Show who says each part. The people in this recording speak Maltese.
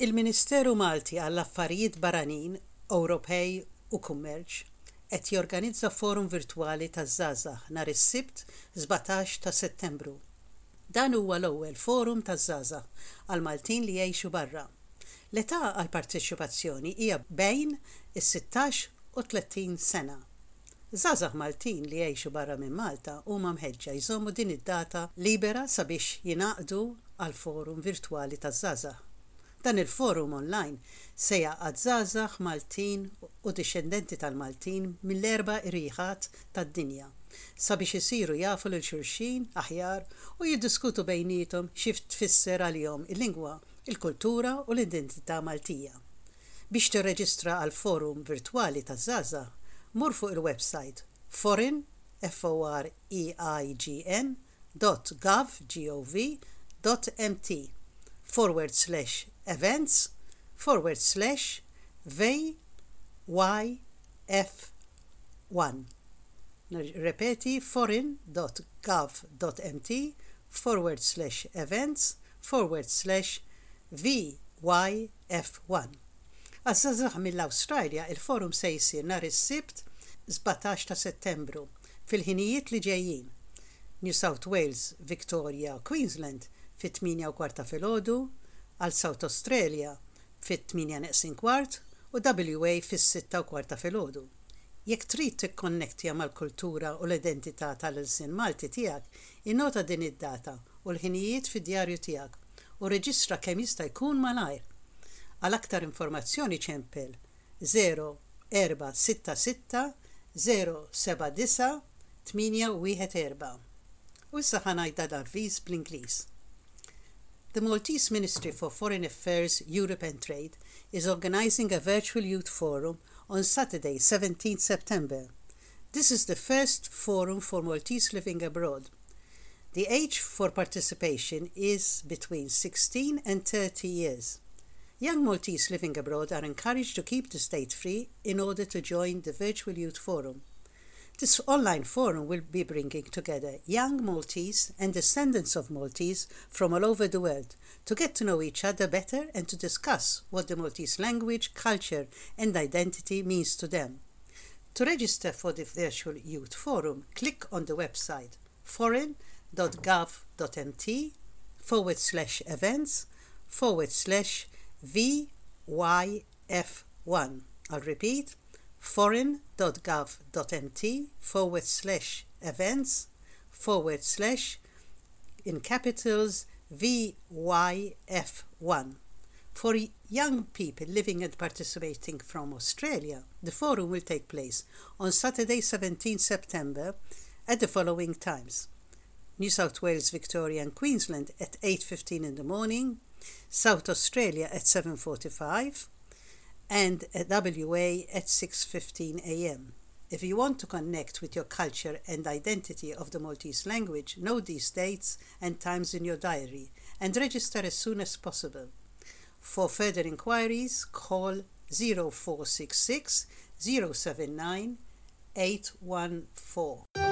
Speaker 1: Il-Ministeru Malti għall-Affarijiet Barranin, Ewropej u Kummerċ qed jorganizza forum virtwali taż-żgħażagħ nhar is-Sibt 17 ta' Settembru. Dan huwa l-ewwel forum taż-żgħażagħ għal Maltin li jgħixu barra. L-età għall-parteċipazzjoni hija bejn is-16 u 30 sena. Żgħażagħ Maltin li jgħixu barra minn Malta huma mħeġġa jżommu din id-data libera sabiex jingħaqdu għall-forum virtwali taż-żgħażagħ. Dan il-forum online se jgħaqqad żgħażagħ Maltin u dixxendenti tal-Maltin mill-erba' irjieħat tad-dinja sabiex isiru jafu lil xulxin aħjar u jiddiskutu bejniethom xi tfisser għalihom il-lingwa, il-kultura u l-identità Maltija. Biex tirreġistra għall-forum virtwali taż-żgħażagħ, mur fuq il-websajt foreign, F-O-R-E-I-G-N, dot gov, G-O-V, dot mt forward slash events forward slash VYF1. Nirrepeti foreign dot gov dot mt forward slash events forward slash VYF1. Għaż-żgħażagħ mill-Awstralja il-forum se jsir nhar is-Sibt 17 ta' Settembru fil-ħinijiet li ġejjin, New South Wales, Victoria u Queensland fit-tmienja u kwart ta' filgħodu, għal South Australia fit-tmienja neqsin kwart u WA fis-sitta u kwart ta' filgħodu. Jekk trid tikkonnektja mal-kultura u l-identità tal-ilsien Malti tiegħek, innota din id-data u l-ħinijiet fid-djarju tiegħek u rreġistra kemm jista' jkun malajr. Għal aktar informazzjoni ċempel 0466 079 814. U issa ħa ngħid dan l-avviż bl-Ingliż. The Maltese Ministry for Foreign Affairs, Europe and Trade is organising a virtual youth forum on Saturday 17 September. This is the first forum for Maltese living abroad. The age for participation is between 16 and 30 years. Young Maltese living abroad are encouraged to keep the state free in order to join the Virtual Youth Forum. This online forum will be bringing together young Maltese and descendants of Maltese from all over the world to get to know each other better and to discuss what the Maltese language, culture and identity means to them. To register for the Virtual Youth Forum, click on the website foreign.gov.mt forward slash events forward slash VYF1. I'll repeat, foreign.gov.mt forward slash events forward slash in capitals VYF1. For young people living and participating from Australia, the forum will take place on Saturday 17 September at the following times. New South Wales, Victoria and Queensland at 8.15 in the morning, South Australia at 7.45 and at WA at 6.15 a.m. If you want to connect with your culture and identity of the Maltese language, note these dates and times in your diary and register as soon as possible. For further inquiries, call 0466 079 814.